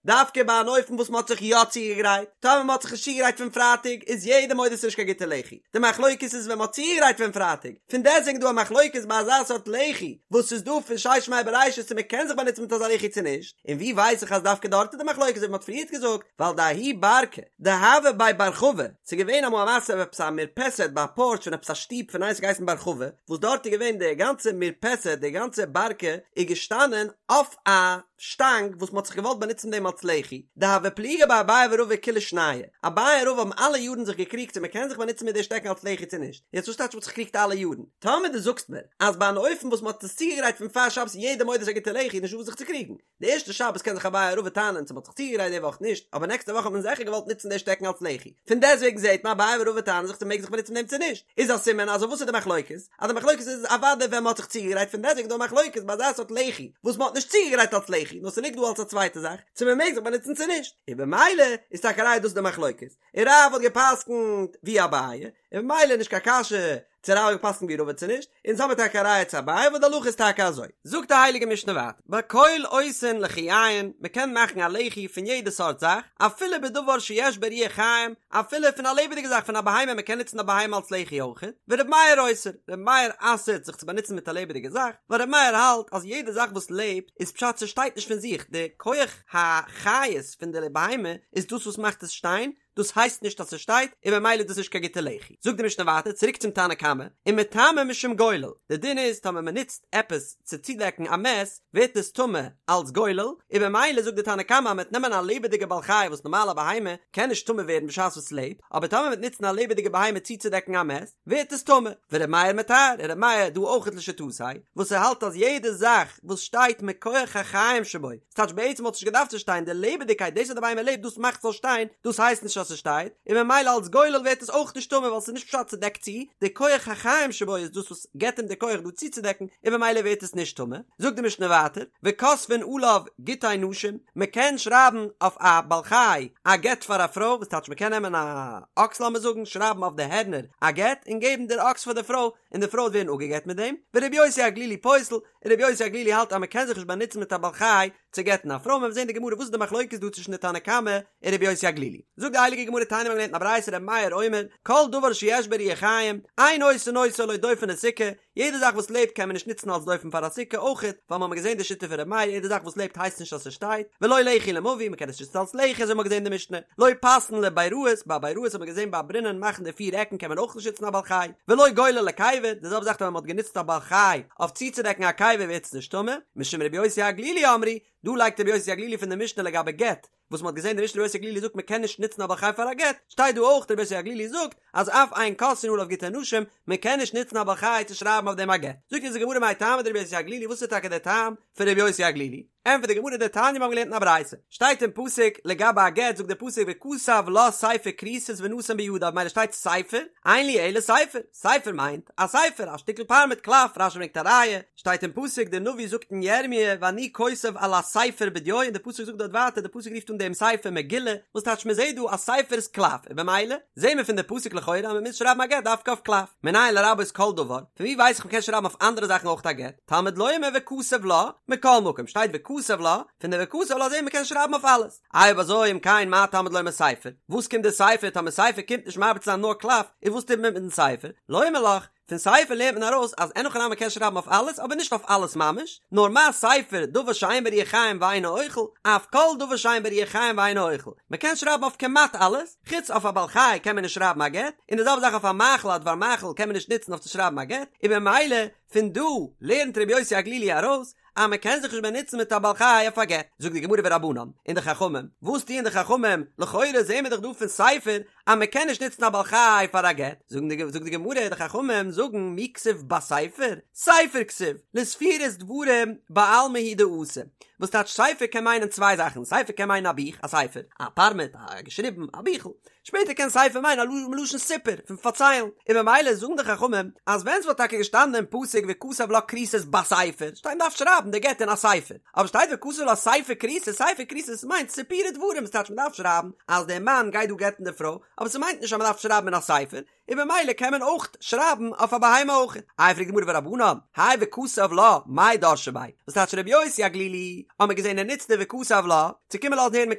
A: דווקא ביי אן אופן וואס מ'האט זיך יא צוגעגרייט, טאמער מ'האט זיך נישט צוגעגרייט פון פרייטאג איז יעדער מודה ס'נישט קיין גוטע לחי, די מחלוקת איז ווען מ'האט צוגעגרייט פון פרייטאג, פון דעסטוועגן דא א מחלוקת ביי אזא סארט לחי וואס איז דא פון ששת ימי בראשית צו מ'קען זיך באנוצן מיט אזא לחי צו נישט, און ווי ווייס איך אז דווקא דארט איז די מחלוקת ווי מ'האט פריערט געזאגט, ווייל דההוא ברקא דהוה בי בר חבא, ס'איז געווען אמאל א מעשה אויף עפעס א מרפסת ביי א פארטש פון עפעס א שטוב פון איינער ס'האט געהייסן בר חבא, וואס דארט איז געווען די גאנצע מרפסת די גאנצע ברקא איז געשטאנען אויף א. שטאנג וואס מ'האט זיך געוואלט באנוצן דעם אלס לחי, דהוו פליגי ביה אביי ורבא כולי שנייהו, אביי און רבא האבן אלע יארן זיך געקריגט צו מ'קען זיך באנוצן מיט די שטעקן אלס לחי צו נישט, יעצט וואס טייטש מ'האט זיך געקריגט אלע יארן? טאמער דו זאגסט מיר אז ביי אן אופן וואס מ'האט עס צוגעגרייט פון פאר שבת איז יעדער מודה ס'איז א גוטע לחי איז נישטא וואס זיך צו קריגן, די ערשטע שבת קען זיך אביי און רבא טענה'ן צו מ'האט זיך צוגעגרייט די וואך נישט, אבער נעקסטע וואך האט מען זיכער געוואלט נוצן די שטעקן אלס לחי, פון דעסוועגן זעט מען אביי און רבא טענה'ן זיך צו מ'מעג זיך באנוצן מיט דעם צו נישט, איז א סימן אז אויף וואס איז די מחלוקת? אז די מחלוקת איז אוודאי ווען מ'האט זיך צוגעגרייט פון דעסוועגן דא א מחלוקת ביי אזא סארט לחי וואס מ'האט נישט צוגעגרייט אלס לחי נאר ס'ליגט דא אלס א צווייטע זאך צו מ'מעג זיך באנוצן צו נישט און במילא איז טאקע א ראיה דאס איז די מחלוקת און רב האט געפסקנט ווי אביי און במילא נישט קיין קשיא צו רב האט געפסקנט ווי רבא צו נישט אונז האמיר טאקע א ראיה צו אביי וואס די הלכה איז טאקע אזוי. זאגט די הייליגע משנה ווייטער בכל עושין לחיין מ'קען מאכן א לחי פון יעדע סארט זאך אפילו בדבר שיש בו רוח חיים אפילו פון א לעבעדיגע זאך פון א בהמה מען קען נוצן א בהמה אלס לחי אויכעט, ור' מאיר אוסר, ר' מאיר אסר'ט זיך צו באנוצן מיט א לעבעדיגע זאך, ווייל ר' מאיר האלט אז יעדע זאך וואס לעבט איז פשט ס'שטייט נישט פון זיך, די כח החיות פון די בהמה איז דאס וואס מאכט עס שטיין, דאס הייסט נישט אז ס'שטייט, און ממילא איז דאס נישט קיין גוטע לחי. זאגט די משנה ווייטער, צוריק צום תנא קמא, ומטמא משום גולל, די דין איז טאמער מען נוצט עפעס צו צודעקן א מת, ווערט עס טמא אלץ גולל, און במילא זאגט די תנא קמא אז מ'וועט נעמען א לעבעדיגע בעל חי וואס נארמאל א בהמה קען נישט טמא ווערן בשעת וואס ס'לעבט, אבער טאמער מ'וועט נוצן א לעבעדיגע בהמה צוצודעקן א מת, ווערט עס טמא. ור' מאיר מטהר, און ר' מאיר דא אויכעט לשיטתו, וואס ער האלט אז יעדע זאך וואס שטייט מכח החיים שבו, ס'טייטש בעצם וואלט נישט געדארפט צו שטיין, די לעבעדיגקייט דאס אז די בהמה לעבט דאס מאכט ס'זאל שטיין, דאס הייסט נישט אז ס'שטייט, און ממילא אלץ גולל ווערט עס אויך נישט טמא ווייל ס'איז נישט פשט ס'דעקט צו, די כח החיים שבו איז דאס וואס געבט אים די כח דא צוצודעקן, און ממילא ווערט עס נישט טמא. זאגט די משנה ווייטער, וכותבין עליו גיטי נשים, מ'קען שרייבן אויף א בעל חי א גט פאר א פרוי, וואס טייטש מ'קען נעמען א אקס לאמיר זאגן, שרייבן אויף די הערנער א גט, און געבן דער אקס פאר די פרוי, און די פרוי וועט ווערן אפגעגט מיט דעם, ורבי יוסי הגלילי פוסל, און רבי יוסי הגלילי האלט אז מ'קען זיך נישט באנוצן מיט א בעל חי צו גט'ן א פרוי, מ'וועט זען אין די גמרא וואס איז די מחלוקת דא צווישן די תנא קמא און רבי יוסי הגלילי. זאגט די הייליגע גמרא תניא מ'האט געלערנט אין א ברייתא רבי מאיר אומר, כל דבר שיש בו רוח חיים, אין עושין אותו לא דופן לסוכה, יעדע זאך וואס לעבט קען מען נישט נוצן אלס דופן פאר א סוכה אויכעט, ווייל מ'האמיר געזען די שיטה פון רבי מאיר יעדע זאך וואס לעבט הייסט נישט אז ס'שטייט, ולא לחי למבוי מ'קען עס נישט נוצן אלס לחי אזוי האמיר געזען אין די משנה, לא פסין לביראות, ביי ביראות האט מען געזען ביי ברינען מאכן די פיר עקן קען מען אויך נישט נוצן א בעל חי, ולא גולל לקבר, די זעלבע זאך ווען מ'האט גענוצט א בעל חי אויף צוצודעקן א קבר ווערט עס נישט טמא, משום רבי יוסי הגלילי אמרו, דא לייגט רבי יוסי הגלילי פון די משנה לגבי גט, וואס מ'האט געזען די משנה רבי יוסי הגלילי זאגט מ'קען נישט נוצן א בעל חי פאר א גט, שטייט דא אויך רבי יוסי הגלילי זאגט אז אף אין כותבין עליו גיטי נשים, מ'קען נישט נוצן א בעל חי צו שרייבן אויף דעם א גט. זאגט אונז די גמרא מאי טעמא דרבי יוסי הגלילי וואס איז טאקע דער טעם פון רבי יוסי הגלילי? ענטפערט די גמרא דתניא מיר האבן געלערנט אין א ברייתא, שטייט אין פסוק לגבי א גט זאגט דער פסוק וכתב לה ספר כריתות ונתן בידה ממילא שטייט ספר, אין לי אלא ספר, ספר מיינט א ספר א שטיקל פארמעט קלף, רשי ברענגט א ראיה, שטייט אין פסוק דער נביא זאגט אין ירמי' ואני כותב על הספר בדיו און דער פסוק זאגט דארט ווייטער דער פסוק רופט אן דעם ספר מגילה, וואס טייטש מען זעט דא אז ספר איז קלף און במילא זעהן מיר פון די פסוק לכאורה אז מען מוז שרייבן א גט דווקא אויף קלף, מנין לרבות כל דבר, פון ווי ווייס איך מען קען שרייבן אויף אנדערע זאכן אויך א גט? תלמוד לומר וכתב לה, מכל מקום שטייט וכתב לה, פון די וכתב לה זעהן מיר קען שרייבן אויף אלעס, אויב אזוי אם כן מה תלמוד לומר ספר, וואס קומט די ספר, טאמער ספר קומט נישט מרבה צו זיין נאר קלף, איז וואס טוט מען מיטן ספר, לומר לך, פון ספר לערנט מען ארויס אז אין הכי נמי מ'קען שרייבן אויף אלעס אבער נישט אויף אלעס ממש, נאר מה ספר דבר שאין בו רוח חיים ואינו אוכל, אף כל דבר שאין בו רוח חיים ואינו אוכל, מ'קען שרייבן אויף כמעט אלעס, חוץ אויף א בעל חי קען מען נישט שרייבן א גט, און די זעלבע זאך אויף א מאכל א דבר מאכל קען מען נישט נוצן אויף צו שרייבן א גט, און במילא פון דא לערנט רבי יוסי הגלילי ארויס אז מען קען זיך נישט באנוצן מיט א בעל חי אויף א גט, זאגט די גמרא ורבנן, און די חכמים, וואס טוען די חכמים, לכאורה זעהן מיר דאך דא פון ספר אז מען קען נישט נוצן א בעל חי פאר א גט, זאגן די זאגט די גמרא, די חכמים זאגן מי כתיב בספר, ספר כתיב, לספירת דברים בעלמא הוא דאתא, וואס טייטש ספר קען מיינען צוויי זאכן, ספר קען מיינען א בוך, א ספר, א פארמעט, א געשריבן, א ביכל, שפעטער קען ספר מיינען א מלשון סיפור, פון פארציילן, און ממילא זאגן די חכמים אז ווען ס'וואלט טאקע געשטאנען אין פסוק וכתב לה כריתות בספר, שטייט מ'דארף שרייבן די גט אין א ספר, אבער שטייט וכתב לה ספר כריתות, ספר כריתות מיינט סיפורי דברים, ס'טייטש מ'דארף שרייבן אז דער מאן גייט דא גט'ן די פרוי, אבער ס'מיינט נישט אז מ'דארף שרייבן אין א ספר, און במילא קען מען אויך שרייבן אויף א בהמה אויך. איי פרעגט די גמרא ורבנן, האי וכתב לה, מאי דרשי ביה? וואס טייטש רבי יוסי הגלילי? האט מען געזען ער נוצט די וכתב לה, צו קומען לאזן הערן מען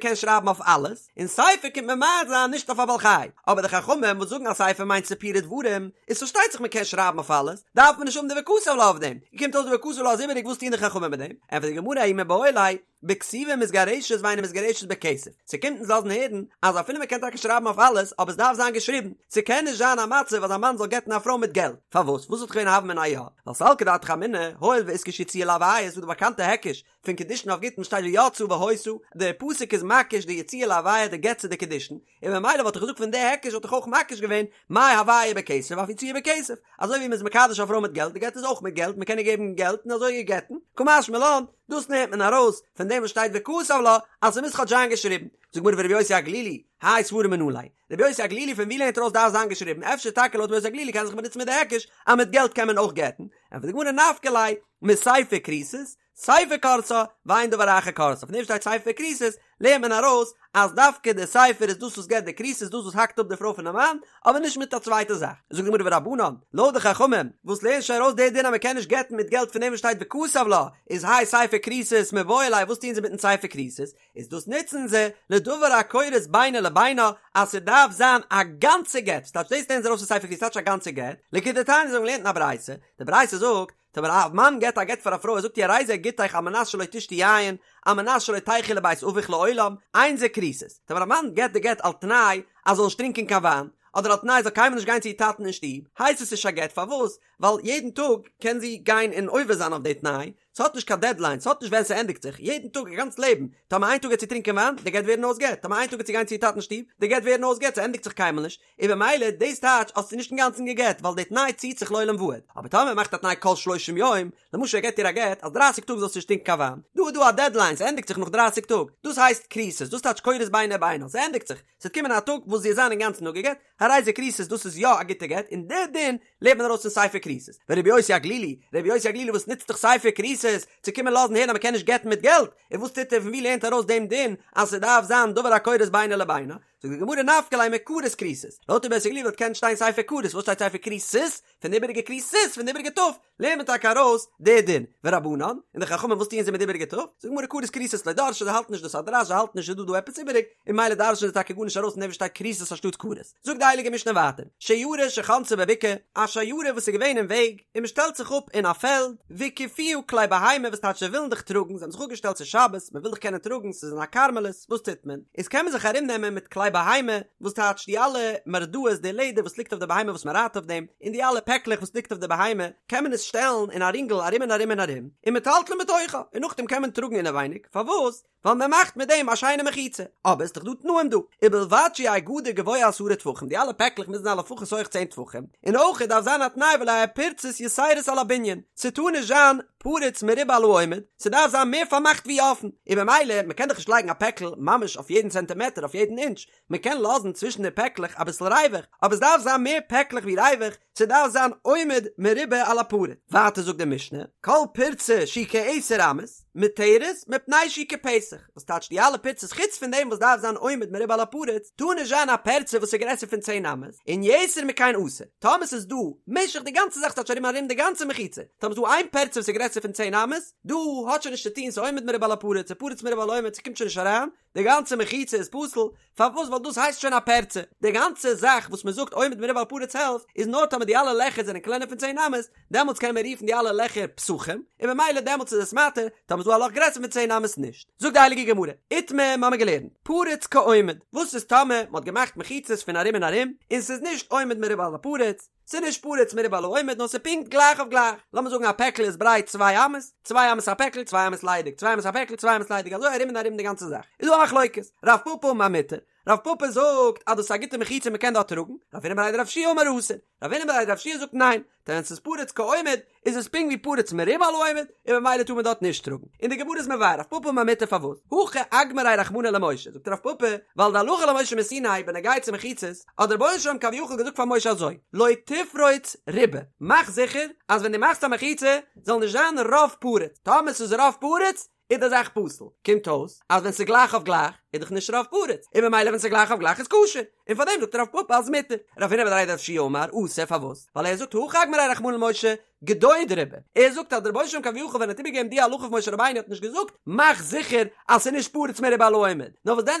A: קען שרייבן אויף אלעס, און ספר קומט ממעט זיין נישט אויף א בעל חי, אבער די חכמים וואס זאגן אז ספר מיינט סיפורי דברים, איז פארשטייט זיך מען קען שרייבן אויף אלעס, דארף מען נישט האבן די וכתב לה אויף דעם, קומט אויס די וכתב לה איז איבעריג וואס טוען די חכמים מיט דעם? ענטפערט די גמרא ההוא מיבעי ליה, בכתיבה מתגרשת ואינה מתגרשת בכסף, ס'קומט אונז לאזן הערן אז אפילו מ'קען טאקע שרייבן אויף אלעס אבער ס'דארף זיין געשריבן, ס'קען נישט זיין א מצב אז א מאן זאל גט'ן א פרוי מיט געלט, פארוואס? וואס וואלט געווען א הוה אמינא יא? ווייל סלקא דעתך אמינא, הואיל ואיתקש יציאה להויה איז דא די באקאנטע היקש פון קידושין אויף גיטין שטייט ויצאה והיתה, די פסוק איז מקיש די יציאה להויה די גט צו די קידושין, און ממילא וואלט איך געזאגט פון די היקש וואלט איך אויך מקיש געווען מה הויה בכסף אף יציאה בכסף, אזוי ווי מ'איז מקדש א פרוי מיט געלט, די גט איז אויך מיט געלט, מ'קען איר געבן געלט און אזוי איר גט'ן, קא משמע לן, דאס נעמט מען ארויס פון דעם וואס שטייט וכתב לה אז ס'מוז כאטש זיין געשריבן. זאגט גמרא ורבי יוסי הגלילי, האי סברא מנא ליה. רבי יוסי הגלילי פון ווי לערנט ער ארויס דארף זיין געשריבן? אפשר טאקע לויט רבי יוסי הגלילי קען זיך באנוצן מיט די היקש אז מיט געלט קען מען אויך גט'ן? ענטפערט די גמרא נפקא ליה מספר כריתות, ספר כורתה, ואין דבר אחר כורתה, פון דעם שטייט ספר כריתות, לערנט מען ארויס אז דווקא די ספר איז דאס וואס געבט די כריתות, דאס וואס האקט אפ די פרוי פונעם מאן, אבער נישט מיט א צווייטע זאך. זאגט די גמרא ורבנן, לויט די חכמים, וואס לערנט שוין ארויס די דין אז מען קען נישט גט'ן מיט געלט פון דעם וואס שטייט וכתב לה, איז האי ספר כריתות מיבעי ליה, וואס טוען זיי מיטן ספר כריתות? איז דאס נוצן זיי לדבר הכורת בינו לבינה אז ס'דארף זיין א גאנצע גט, ס'טייטש דאס לערנען זיי ארויס פון ספר כריתות, ס'טייטש א גאנצע גט, לכדתניא אזוי האבן געלערנט אין א ברייתא, די ברייתא זאגט, טאמער א מאן געבט א גט פאר א פרוי ער זאגט איר הרי זה גיטך על מנת שלא תשתי יין, על מנת שלא תלכי לבית אביך לעולם, אין זה כריתות. טאמער א מאן געבט די גט על תנאי אז זאל נישט טרינקען קיין וויין, אדער על תנאי זאל קיינמאל נישט גיין צו איר טאטן אין שטוב, הייסט עס נישט א גט, פארוואס? ווייל יעדן טאג קען זי גיין און עובר זיין אויף די תנאי, ס'האט נישט קיין דעדליין, ס'האט נישט ווען ס'ענדיגט זיך, יעדן טאג איר גאנץ לעבן, טאמער איין טאג גייט זי טרינקען וויין, די גט ווערן אויס גט, טאמער איין טאג גייט זי גיין צו איר טאטן שטוב, די גט ווערן אויס גט, ס'ענדיגט זיך קיינמאל נישט, און במילא דאס טייטש האסטו נישט אינגאנצן גע'גט ווייל די תנאי ציט זיך לעולם ועד, אבער טאמער מ'מאכט א תנאי כל שלושים יום, למשל ער געט איר א גט אז דרייסיג טאג זאלסטו נישט טרינקען קיין וויין, דא איז דא א דעדליין ס'ענדיגט זיך נאך דרייסיג טאג, דאס הייסט כריתות, דאס טייטש כורת בינו לבינה, ס'ענדיגט זיך, ס'וועט קומען א טאג וואס זי וועט זיין אינגאנצן אפגע'גט, הרי זה כריתות דאס איז יא א גוטע גט, און די דין לערנט מען ארויס פון ספר כריתות. ורבי יוסי הגלילי, רבי יוסי הגלילי וואס נוצט דאך ספר כריתות צו קומען לאזן הערן אז מ'קען נישט גט'ן מיט געלט, און וואס טוט ער פון ווי לערנט ער ארויס דעם דין אז ס'דארף זיין דבר הכורת בינו לבינה? זאגט די גמרא נפקא ליה מכרת כריתות, לויט רבי יוסי הגלילי וואלט געקענט שטיין ספר כרת, וואס שטייט ספר כריתות? פון די איבעריגע כריתות פון די איבעריגע ת' לערנט מען טאקע ארויס די דין, ורבנן, און די חכמים וואס טוען זיי מיט די איבעריגע ת'? זאגט די גמרא כרת כריתות לא דרשי זיי האלטן נישט דאס א דרש זיי האלטן נישט ס'איז דא דא עפעס איבעריג, און ממילא דרש'ן זיי טאקע גארנישט ארויס פון דעם וואס שטייט כריתות אנשטאט כרת. זאגט די הייליגע משנה ווייטער, שיירה שחנתה בבקעה, א שיירה וואס איז געווען אין וועג, און מען שטעלט זיך אפ אין א פעלד, והקיפוה כלי בהמה וואס טייטש זיי ווילן דיך טראגן, זיי האבן זיך אפגעשטעלט ס'איז שבת, מען וויל דיך קענען טראגן, ס'איז אין א כרמלית, וואס טוט מען? איז קען מען זיך ארום נעמען מיט כלי כלי בהמה, וואס טייטש די אלע מרדעות די לעדער וואס ליגט אויף די בהמה וואס מען רייט אויף דעם, און די אלע פעקלעך וואס ליגט אויף די בהמה, קען מען עס שטעלן אין א רינגל ארום און ארום און ארום, ומטלטלין בתוכה, און נאכדעם קען מען טראגן אינעווייניג, פארוואס? ווייל מען מאכט מיט דעם א שיינע מחיצה, אבער ס'איז דאך דא תנאים דא, ובלבד שיהא גדר גבוה עשרה טפחים, די אלע פעקלעך מוזן זיין לפחות הויך צען טפחים, און אויך דארף זיין א תנאי ולא יהא פרצות יתירות על הבנין, ס'טאר נישט זיין פרוץ מרובה על העומד, ס'דארף זיין מער פארמאכט ווי אפן, און במילא מ'קען דאך נישט לייגן א פעקל ממש אויף יעדן צענטימעטער אויף יעדן אינטש, מ'קען לאזן צווישן די פעקלעך אביסל ריווח, אבער ס'דארף זיין מער פעקלעך ווי ריווח, ס'דארף זיין עומד מרובה על הפרוץ. ווייטער זאגט די משנה, כל פרצה שהיא כעשר אמות, מותרת, מפני שהיא כפתח, וואס טייטש די אלע פרצות חוץ פון דעם וואס דארף זיין עומד מרובה על הפרוץ, טאר נישט זיין א פרצה וואס איז גרעסער פון צען אמות, און יתר מכאן אסור, טאמער ס'איז דא משך די גאנצע זאך ס'טייטש ארום ארום די גאנצע מחיצה, טאמער ס'איז דא איין פרצה וואס איז גרעסער פון צען אמות, דא האט שוין נישט צו טון ס'איז עומד מרובה על הפרוץ, ס'פרוץ מרובה על העומד ס'קומט שוין נישט אריין, די גאנצע מחיצה איז פסול, פארוואס ווייל דאס הייסט שוין א פרצה, די גאנצע זאך וואס מען זאגט עומד מרובה על הפרוץ העלפט איז נאר טאמער די אלע לעכער זענען קלענער פון צען אמות, דעמאלטס קען מען רופן די אלע לעכער פתחים, און ממילא דעמאלטס איז עס מתיר, טאמער איז דא א לאך גרעסער פון צען אמות נישט. זאגט די הייליגע גמרא, איתמר מ'האמיר געלערנט, פרוץ כעומד, וואס איז טאמער מ'האט געמאכט מחיצות פון ארום און ארום, און ס'איז נישט עומד מרובה על הפרוץ, ס'איז נישט פרוץ מרובה על העומד נאר ס'איז פונקט גלייך אויף גלייך, לאמיר זאגן א פעקל איז ברייט צוויי אמות, צוויי אמות א פעקל, צוויי אמות ליידיג, צוויי אמות א פעקל, צוויי אמות ליידיג, אזוי ארום און ארום די גאנצע זאך. איז דא א מחלוקת, רב פפא אמר מותר, רב פפא זאגט אז דאס איז א גוטע מחיצה מ'קען דארט טראגן, רב הונא בריה דרב יהושע אמר אסור, רב הונא בריה דרב יהושע זאגט ניין, דען ווען ס'איז פרוץ כעומד איז עס פונקט ווי פרוץ מרובה על העומד, און ממילא טאר מען דארט נישט טראגן. און די גמרא איז מבאר רב פפא אמר מותר פארוואס, הכי אגמריה רחמנא למשה, זאגט רב פפא, ווייל די הלכה למשה מסיני בנוגע צו מחיצות, האט דער רבונו של עולם כביכול געזאגט פאר משה אזוי, לא תפרוץ רובה, מאך זיכער אז ווען דו מאכסט א מחיצה זאל נישט זיין רוב פרוץ, טאמער ס'איז רוב פרוץ איז די זאך פסול, קומט אויס אז ווען ס'איז גלייך אויף גלייך איז דאך נישט רוב פרוץ, און ממילא ווען ס'איז גלייך אויף גלייך איז כשר, און פארדעם זאגט רב פפא אז מותר. רב הונא בריה דרב יהושע אמר אסור פארוואס? ווייל ער זאגט הכי אגמריה רחמנא למשה גדוד רובה, ער זאגט אז דער רבונו של עולם כביכול ווען ער האט איבערגעגעבן די הלכה פון משה רבינו האט נישט געזאגט מאך זיכער אז ס'איז נישט פרוץ מרובה על העומד, נאר וואס דען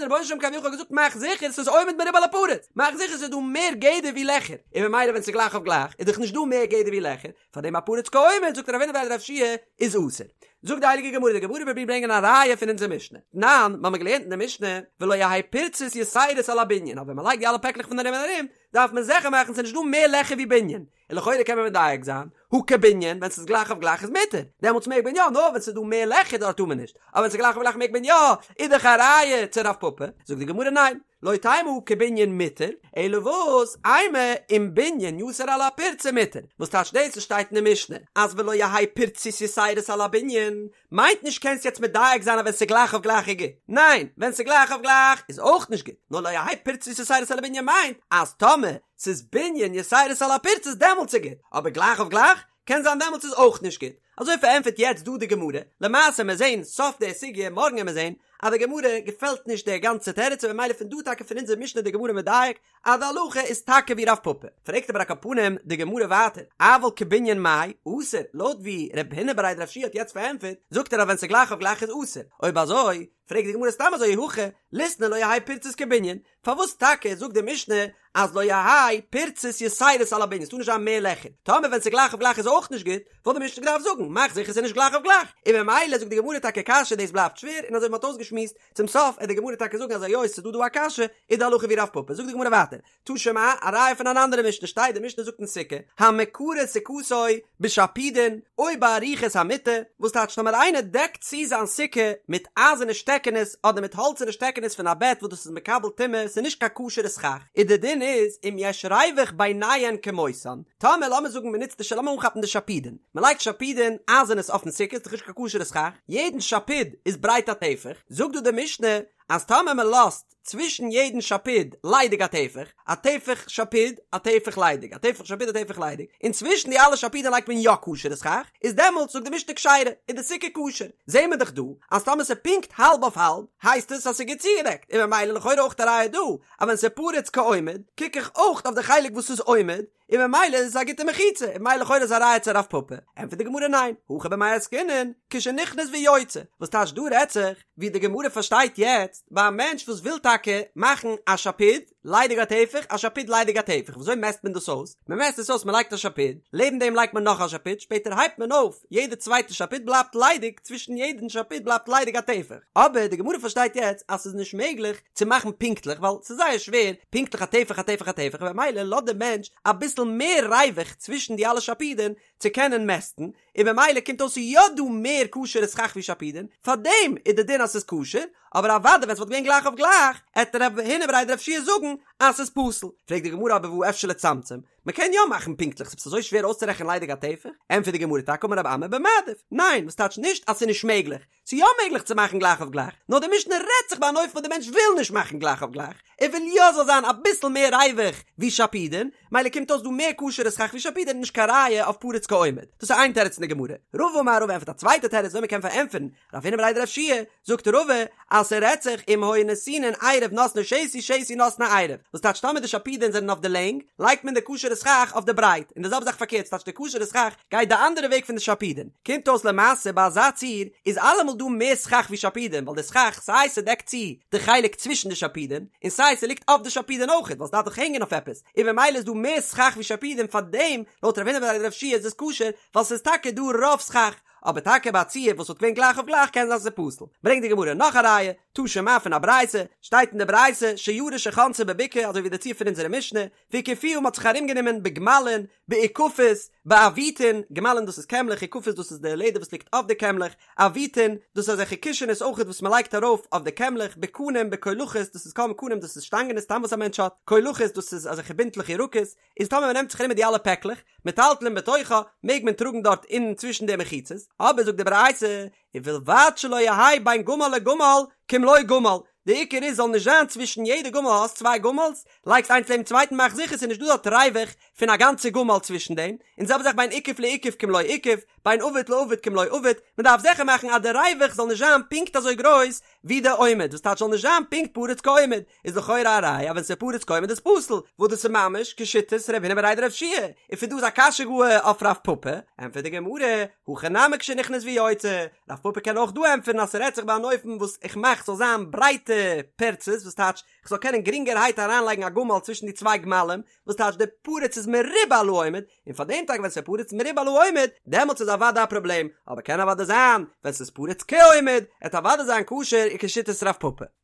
A: דער רבונו של עולם כביכול האט געזאגט מאך זיכער ס'איז עומד מרובה על הפרוץ, מאך זיכער ס'איז דא מער גדר ווי לעכער, און ממילא ווען ס'איז גלייך אויף גלייך איז דאך נישט דא מער גדר ווי לעכער, פארדעם א פרוץ כעומד זאגט רב הונא בריה דרב יהושע איז אסור. זאגט די הייליגע גמרא, די גמרא פרובירט ברענגען א ראיה פון אונזער משנה, תנן, מ'האמיר געלערנט אין די משנה, ולא יהא פרצות יתירות על הבנין, אז ווען מ'לייגט די אלע פעקלעך פון ארום און ארום, דארף מען זיכער מאכן ס'איז נישט דא מער לעכער ווי בנין, און לכאורה קען מען מדייק זיין, הא כבנין, ווען ס'איז גלייך אויף גלייך איז מותר, דעמאלטס מעג מען יא, נאר ווען ס'איז דא מער לעכער דארט טאר מען נישט, אבער ווען ס'איז גלייך אויף גלייך מעג מען יא, איז דאך א ראיה צו רב פפא, זאגט די גמרא ניין, לא תימא הא כבנין מותר, אלא וואס, אימא אם בנין יתר על הפרצה מותר, וואס טייטש דאס וואס שטייט אין די משנה אז ולא יהא פרצות יתירות על הבנין, מיינט נישט קענסט יעצט מדייק זיין אז ווען ס'איז גלייך אויף גלייך איז גוט, ניין, ווען ס'איז גלייך אויף גלייך איז אויך נישט גוט, נאר לא יהא פרצות יתירות על הבנין מיינט אז טאמער ס'איז בנין יתירות על הפרצות דעמאלטס איז גוט, אבער גלייך אויף גלייך קען זיין דעמאלטס איז אויך נישט גוט. אזוי פארענטפערט יעצט דא די גמרא, למעשה מיר זעהן סוף די סוגיא מארגן עמיר זעהן אז די גמרא געפעלט נישט די גאנצע תירוץ און ממילא פון דא טאקע פון אונזער משנה די גמרא מדייק אז די הלכה איז טאקע ווי רב פפא. פרעגט אבער על כל פנים די גמרא ווייטער, אבל כבנין מאי אסור, לויט ווי רב הונא בריה דרב יהושע האט יעצט פארענטפערט, זאגט ער אז ווען ס'איז גלייך אויף גלייך איז אסור, אויב אזוי פרעגט די גמרא סתם אזוי אי הכי ליתני לא יהא פרצות כבנין, פארוואס טאקע זאגט די משנה אז לא יהא פרצות יתירות על הבנין, ס'טאר נישט זיין מער לעכער, טאמער ווען ס'איז גלייך אויף גלייך איז אויך נישט גוט, וואלט די משנה געדארפט זאגן, מאך זיכער ס'איז נישט גלייך אויף גלייך, און ממילא זאגט די גמרא טאקע קשיא דאס בלייבט שווער, און אזוי ווי מ'האט אויסגעשמועסט, צום סוף עט די גמרא טאקע זאגן אז היות ס'איז דא דא א קשיא, איז די הלכה ווי רב פפא, זאגט די גמרא ווייטער, תא שמע, א ראיה פון אן אנדערע משנה שטייט, די משנה זאגט אין סוכה, המקרה סוכתו בשפודין או בארוכות המטה, וואס טייטש טאמער איינער דעקט צו זיין סוכה מיט אייזערנע שטעקענעס אדער מיט האלצערנע שטעקענעס פון א בעט וואס דאס איז מקבל טומאה, ס'איז נישט קיין כשר'ע סכך, איז די דין איז אם יש ריוח ביניהן כמותן, טאמער לאמיר זאגן מ'נוצט די לאמיר אנכאפן די שפודין, מ'לייגט שפודין אייזערנעס אויפן סוכה, ס'איז דאך נישט קיין כשר'ע סכך, יעדן שפוד איז ברייט א טפח, זאגט דא די משנה אז טאמער מ'לאזט צווישן יעדן שפוד ליידיג א טפח, א טפח שפוד, א טפח ליידיג, א טפח שפוד א טפח ליידיג, און צווישן די אלע שפודים לייגט מען יא כשר'ע סכך, איז דעמאלטס זאגט די משנה כשרה, איז די סוכה כשר. זעהן מיר דאך דא אז טאמער ס'איז פונקט האלב אויף האלב, הייסט עס אז ס'איז גוט צוגעדעקט, און ממילא לכאורה אויך א ראיה דא, אז ווען ס'איז פרוץ כעומד, קוק איך אויך אויף די חלק וואס איז עומד, און ממילא איז עס א גוטע מחיצה, און ממילא לכאורה איז א ראיה צו רב פפא. ענטפערט די גמרא ניין, הכא במאי עסקינן, כשנכנס ויוצא, וואס טייטש דא רעדט זיך, ווי די גמרא פארשטייט יעצט, ביי א מענטש וואס וויל טאקע מאכן א שפוד. ליידיג א טפח, א שפוד ליידיג א טפח, וויאזוי מעסט מען דאס אויס? מען מעסט עס אויס מען לייגט א שפוד, לעבן דעם לייגט מען נאך א שפוד, שפעטער הייבט מען אויף, יעדע צווייטע שפוד בלייבט ליידיג, צווישן יעדן שפוד בלייבט ליידיג א טפח. אבער די גמרא פארשטייט יעצט אז ס'איז נישט מעגליך צו מאכן פונקטליך ווייל ס'איז זייער שווער פונקטליך א טפח א טפח א טפח במילא לאזט דער מענטש אביסל מער ריווח צווישן די אלע שפודין צו קענען מעסטן, און במילא קומט אויס ס'איז יא דא מער כשר'ע סכך ווי שפודין, פארדעם איז די דין אז ס'איז כשר, אבער אוודאי ווען ס'וואלט געווען גלייך אויף גלייך, עט רב הונא בריה דרב יהושע זאגן אז ס'איז פסול. פרעגט די גמרא אבער והא אפשר לצמצם, מ'קען יא מאכן פונקטליך, ס'איז אזוי שווער אויסצורעכענען ליידיג א טפח? ענטפערט די גמרא טאקע אמר רב אמי במעדיף, ניין, וואס טייטש נישט אז ס'איז נישט מעגליך, ס'איז יא מעגליך צו מאכן גלייך אויף גלייך, נאר די משנה רעדט זיך ביי אן אופן וואס די מענטש וויל נישט מאכן גלייך אויף גלייך, ער וויל יא זאל זיין אביסל מער ריווח ווי שפודין, מילא קומט אויס דא מער כשר'ע סכך ווי שפודין נישט קיין ראיה אויף פרוץ כעומד. דאס איז איין תירוץ אין די גמרא. רבא אמר רבא ענטפערט א צווייטע תירוץ וויאזוי מ'קען פארענטפערן רב הונא בריה דרב יהושע, זאגט רבא אז ס'רעדט זיך אם היו נתונין עירוב נותנו שתי שתי נותנו עירוב, וואס טייטש טאמער די שפודין זענען אויף די לענג, לייגט מען די כשר'ע סכך אויף די ברייט, און די זעלבע זאך פארקערט ס'טייטש די כשר'ע סכך גייט די אנדערע וועג פון די שפודין, קומט אויס למעשה ביי אזא ציור איז אלעמאל דא מער סכך ווי שפודין ווייל די סכך סיי ס'דעקט צו די חלק צווישן די שפודין און סיי ס'ליגט אויף די שפודין אויכעט ווייל ס'דארף דאך הענגען אויף עפעס און במילא איז דא מער סכך ווי שפודין פארדעם לויט רב הונא בריה דרב יהושע איז עס כשר ווייל ס'איז טאקע דא רוב סכך אבער טאקע ביי א ציור וואס וואלט געווען גלייך אויף גלייך קען זיין ס'איז פסול. ברענגט די גמרא נאך א ראיה, תא שמע פון א ברייתא, שטייט אין די ברייתא שיירא שחנתה בבקעה אזוי ווי די ציור פון אונזערע משנה, והקיפוה מ'האט זיך ארומגענומען בגמלין, באוכפות, בעביטין, גמלין דאס איז קעמלעך, אוכפות דאס איז די לעדער וואס ליגט אויף די קעמלעך, עביטין, דאס איז אזעלכע קישענעס אויכעט וואס מ'לייגט ארויף אויף די קעמלעך, בקנים, בקולחות, דאס איז קנים קנים דאס איז שטאנגענעס סתם וואס א מענטש האט, קולחות דאס איז אזעלכע בינטלעך ירקות, איז טאמער מ'נעמט זיך ארום מיט די אלע פעקלעך, מטלטלין בתוכה, מעג מען טראגן דארט אין צווישן די מחיצות, אבער זאגט די ברייתא, ובלבד שלא יהא בין גמל לגמל כמלוא גמל, די עיקר איז זאל נישט זיין צווישן יעדע גמל האסט צוויי גמל'ס, לייגסט איינס לעבן צווייטן מאך זיכער ס'איז נישט דא דארט ריווח פון א גאנצע גמל צווישן דעם, און זעלבע זאך בין אוכף לאוכף כמלוא אוכף, בין עביט לעביט כמלוא עביט, מען דארף זיכער מאכן אז די ריווח זאל נישט זיין פונקט אזוי גרויס ווי די עומד, וואס טייטש זאל נישט זיין פונקט פרוץ כעומד, איז לכאורה א ראיה אז ווען ס'איז פרוץ כעומד איז פסול, וואס דאס איז ממש כשיטת רב הונא בריה דרב יהושע, און פון דא איז א קשיא גאר אויף רב פפא, ענטפערט די גמרא, הכא נמי כשנכנס ויוצא, רב פפא קען אויך דא ענטפערן אז ס'רעדט זיך ביי אן אופן וואס איך מאך ס'זאל זיין ברייטע פרצות וואס טייטש כ'זאל קענען גרינגערהייט אריינלייגן א גמל צווישן די צוויי גמלים, וואס טייטש די פרוץ איז מרובה על העומד, און פאר דעם טאקע ווען ס'איז פרוץ מרובה על העומד, דעמאלטס איז אוודאי א פראבלעם, אבער קען אוודאי זיין ווען ס'איז פרוץ כעומד, עט אוודאי זיין כשר כשיטת רב פפא.